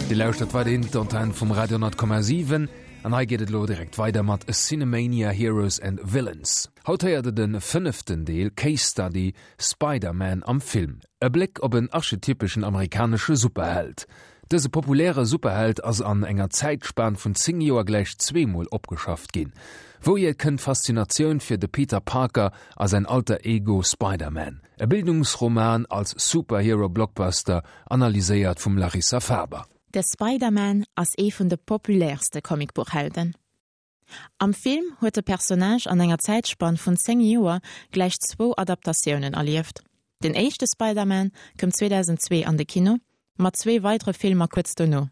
Dir lauschtert weiderhin d'Antenn vum Radio 10,7 an hei geet et elo direkt weider mat Cinemania Heroes and Villains. Haut héiert der de fënneften Deel, Case Study, Spider-Man am Film. E Bléck op en archetypeschen amerikanesche Superheld. Dëse populäre Superheld ass an enger Zäitspan vun 10 Joer gläich zweemol opgeschafft ginn. Wouhier kënnt d'Faszinatioun fir de Peter Parker a säin Alter Ego Spider-Man? E Bildungsroman als Superhero-Blockbuster, analyséiert vum Larissa Faber. De Spider-Man ass ee vun de populäerste Comicbuchhelden. Am Film huet de Personnage an enger Zäitspann vun 10 Joer gläich zwou Adaptatiounen erlieft. Den éischte Spider-Man koum 2002 an de Kino, mat zwee weidere Filmer kuerz dono.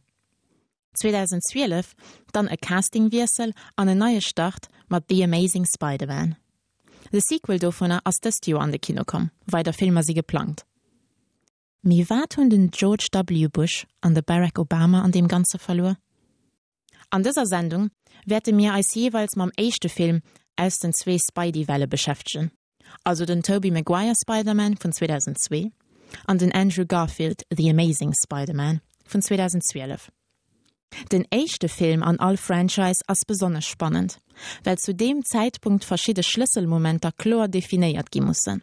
2012 dann e Castingwiessel an en neie Start mat The Amazing Spider-Man. De Sequel dovunner ass dëst Joer an de Kino komm, weider Filmer si geplangt. Mee wat hunn den George W. Bush an de Barack Obama an deem Ganze verluer? An dëser Sendung wäerte mir eis jeeweils mam éischte Film aus den zwee Spidey-Welle beschäftegen, also den Tobey Maguire Spider-Man vun 2002 an den Andrew Garfield The Amazing Spider-Man vun 2012. Den éischte Film an all Franchise ass besonnesch spannend, well zu deem Zäitpunkt verschidde Schlësselmomenter kloer definéiert gi mussen.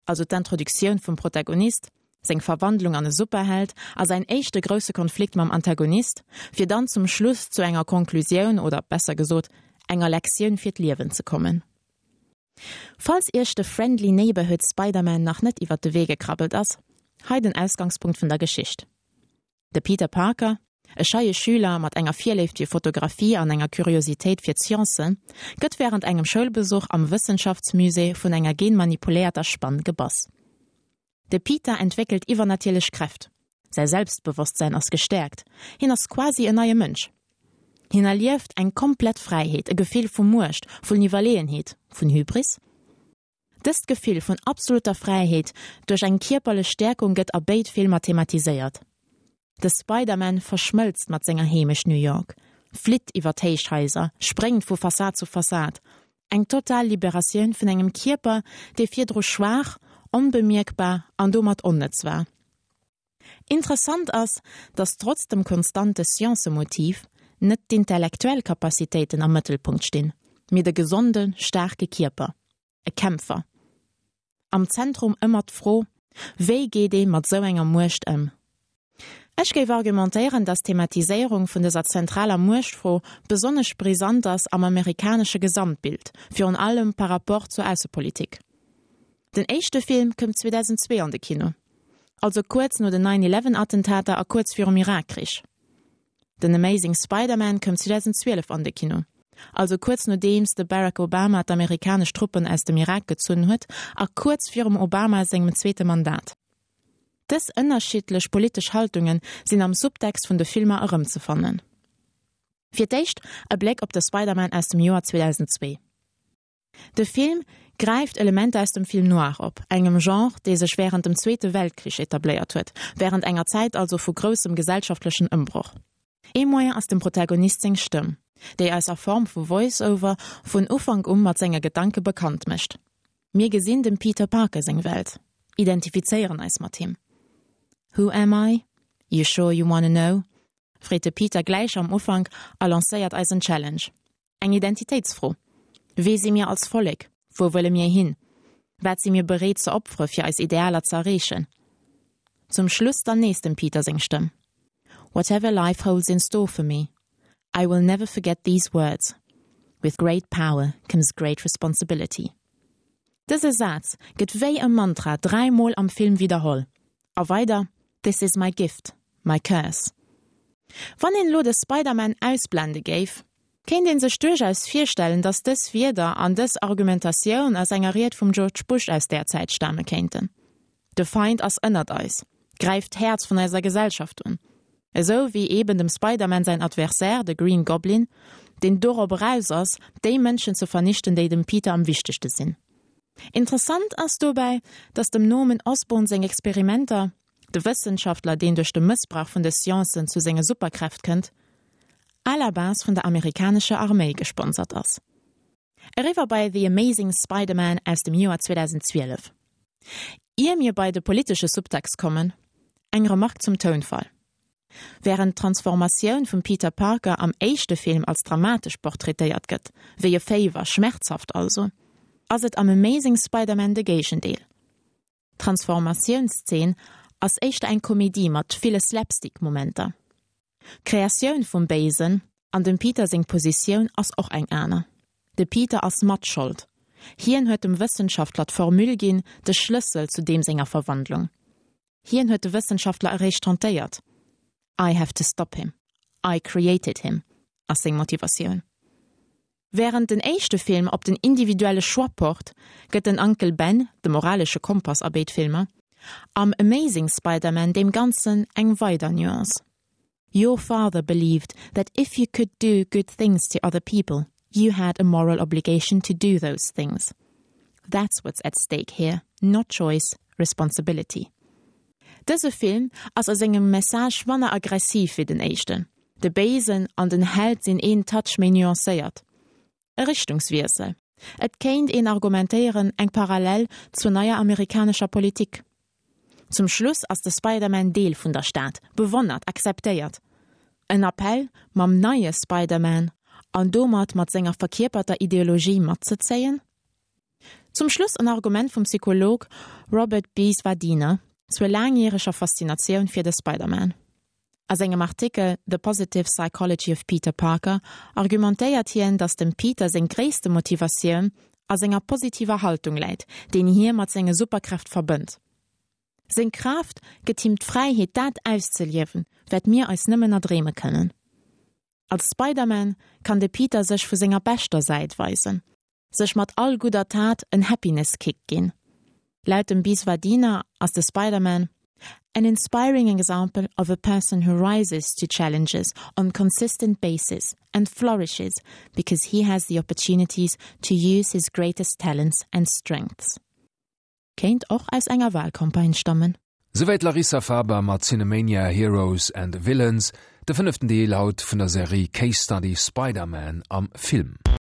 also d'Introduktioun vum Protagonist, seng Verwandlung an e Superheld a säin éischte grousse Konflikt mam Antagonist, fir dann zum Schluss zu enger Konklusioun oder besser gesot enger Lektioun fir d'Liewen ze kommen. Falls iech de Friendly Neighborhood Spider-Man nach net iwwert de Wee gekrabbelt ass, hei den Ausgangspunkt vun der Geschicht. De Peter Parker, e scheie Schüler mat enger Virléift fir Fotografie an enger Kuriositéit fir d'Sciencen, gëtt wärend engem Schoulbesuch am Wëssenschaftsmusée vun enger genmanipuléierter Spann gebass. De Peter entwéckelt iwwernatierlech Kräft, säi Selbstbewosstsäin ass gestäerkt, hien ass quasi en neie Mënsch. Hien erlieft eng komplett Fräiheet, e Gefill vu Muecht, vun Iwwerleeënheet, vun Hybris. Dëst Gefill vun absolutter Fräiheet duerch eng kierperlech Stäerkung gëtt a béid Filmer thematiséiert. De Spider-Man verschmëlzt mat senger Heemecht New York, flitt iwwer d'Héichhaiser, spréngt vu Fassad zu Fassad. Eng total Liberatioun vun engem Kierper, dee virdru schwaach, onbemierkbar an domat onnëtz war. Interessant ass, datt trotz dem konstante Sciencemotiv net d'intellektuell Capacitéiten am Mëttelpunkt stinn, mee de gesonde, staarke Kierper, e Kämpfer. Am Zentrum ëmmer d'Fro, Wéi geet ee mat sou enger Muecht ëm? Ech géif argumentéieren, datt d'Thematiséierung vun dëser zentraler Muechtfro besonnesch brisant ass am amerikanesche Gesamtbild, virun allem par rapport zur Aussepolitik. Den éischte Film koum 2002 an de Kino, also kuerz no den Nine Eleven Attentater a kuerz virum Irakkrich. Den Amazing Spider-Man koum 2012 an de Kino, also kuerz nodeems de Barack Obama d'amerikanesch Truppen aus dem Irak gezunn huet a kuerz virum Obama sengem zweete Mandat. Dës ënnerschiddlech politesch Haltunge sinn am Subtext vun de Filmer erëmzefannen. Fir d'éischt e Bléck op de Spider-Man aus dem Joer 2002. De Film gräift Elementer aus dem Film noir op, engem Genre, dee sech wärend dem Zweete Weltkrich etabléiert huet, wärend enger Zäit also vu groussem gesellschaftlechen Ëmbroch. Ee Moyen ass dem Protagonist seng Stëmm, déi eis a Form vu Voice-Over vun Ufank u mat senge Gedanke bekannt mécht. Mir gesinn dem Peter Parker seng Welt, identifizéieren eis mat him. Who am I? You sure you wanna know? freet de Peter gläich am Ufank a lancéiert eis en Challenge. Eng Identitéitsfro, Wee si mir als Vollek? Wou wëlle mir hin? Wat si mir bereet ze opfere fir eis Idealer ze erreechen? Zum Schluss dann nees dem Peter seng Stëmm, Whatever life holds in store for me, I will never forget these words, With great power comes great responsibility. Dëse Saz gëtt wéi e Mantra 3 mol am Film widderholl. A weider, This is my gift, my curse. Wann een elo de Spider-Man ausblende géif, kéint een sech duerchaus virstellen, datt dës Wierder an dës Argumentatioun aus enger Ried vum George Bush aus där Zäit stame kéinten. De Feind ass ënnert eis, gräift d'Häerz vun eiser Gesellschaft un. Esou wéi eben dem Spider-Man säin Adversaire, de Green Goblin, deen dorop eraus ass, déi Mënschen ze vernichten, déi dem Peter am wichtegste sinn. Interessant ass dobäi, datt dem Norman Osborn seng Experimenter, de Wëssenschaftler, deen duerch de Mëssbrauch vun de Sciencen zu senge Superkräft kënnt, à la base vun der amerikanescher Arméi gesponsert ass. Eriwwer bei The Amazing Spider-Man aus dem Joer 2012. Ier mir bei de politesche Subtext kommen, eng Remark zum Tounfall. Wärend d'Transformatioun vum Peter Parker am éischte Film als dramatesch portraitéiert gëtt, wéi e Féiwer, schmerzhaft also, ass et am Amazing Spider-Man de Géigendeel. D'Transformatiounszeen ass éischter eng Komedie mat ville Slapstick-Momenter. D'Kreatioun vum Béisen an dem Peter seng Positioun ass och eng aner. De Peter ass Matschold. Hien huet dem Wëssenschaftler d'Formule ginn, de Schlëssel zu deem senger Verwandlung. Hien huet de Wëssenschaftler eréischt tentéiert. I have to stop him. I created him, ass seng Motivatioun. Wärend den éischte Film op den individuelle Choix pocht, gëtt den Uncle Ben, de moralesche Kompass a béid Filmer, am Amazing Spider-Man deem Ganzen eng weider Nuance. Your father believed that if you could do good things to other people, you had a moral obligation to do those things. That's what's at stake here, not choice, responsibility. Dëse Film ass a sengem Message manner aggressiv wéi den éischten. De Béisen an den Held sinn een Touch méi nuancéiert. E Richtungswiessel. Et kéint een argumentéieren, eng Parallel zur neier amerikanescher Politik. Zum Schluss ass de Spider-Man Deel vun der Stad, bewonnert, akzeptéiert. En Appell, mam neie Spider-Man an domat mat senger verkierperter Ideologie matzezéien? Zum Schluss en Argument vum Psycholog Robert B. Svadina zur laangjäreger Faszinatioun fir de Spider-Man. A sengem Artikel The Positive Psychology of Peter Parker argumentéiert hien, datt dem Peter seng gréisste Motivatioun a senger positiver Haltung läit, deen hie mat senge Superkräft verbënnt. Seng Kraaft gëtt him d'Fräiheet dat auszeliewen, wat mir eis nëmmen erdreeme kënnen. Als Spider-Man kann de Peter sech vu senger beschter Säit weisen, sech mat all gudder Tat en Happiness Kick ginn. Laut dem Biswadina ass de Spider-Man an inspiring example of a person who rises to challenges on consistent basis and flourishes because he has the opportunities to use his greatest talents and strengths. Kéint och aus enger Wahlcampagne stammen. Souwäit d'Larissa Faber mat Cinemania Heroes and Villains, de fënneften Deel haut vun der Serie Case Study Spider-Man am Film.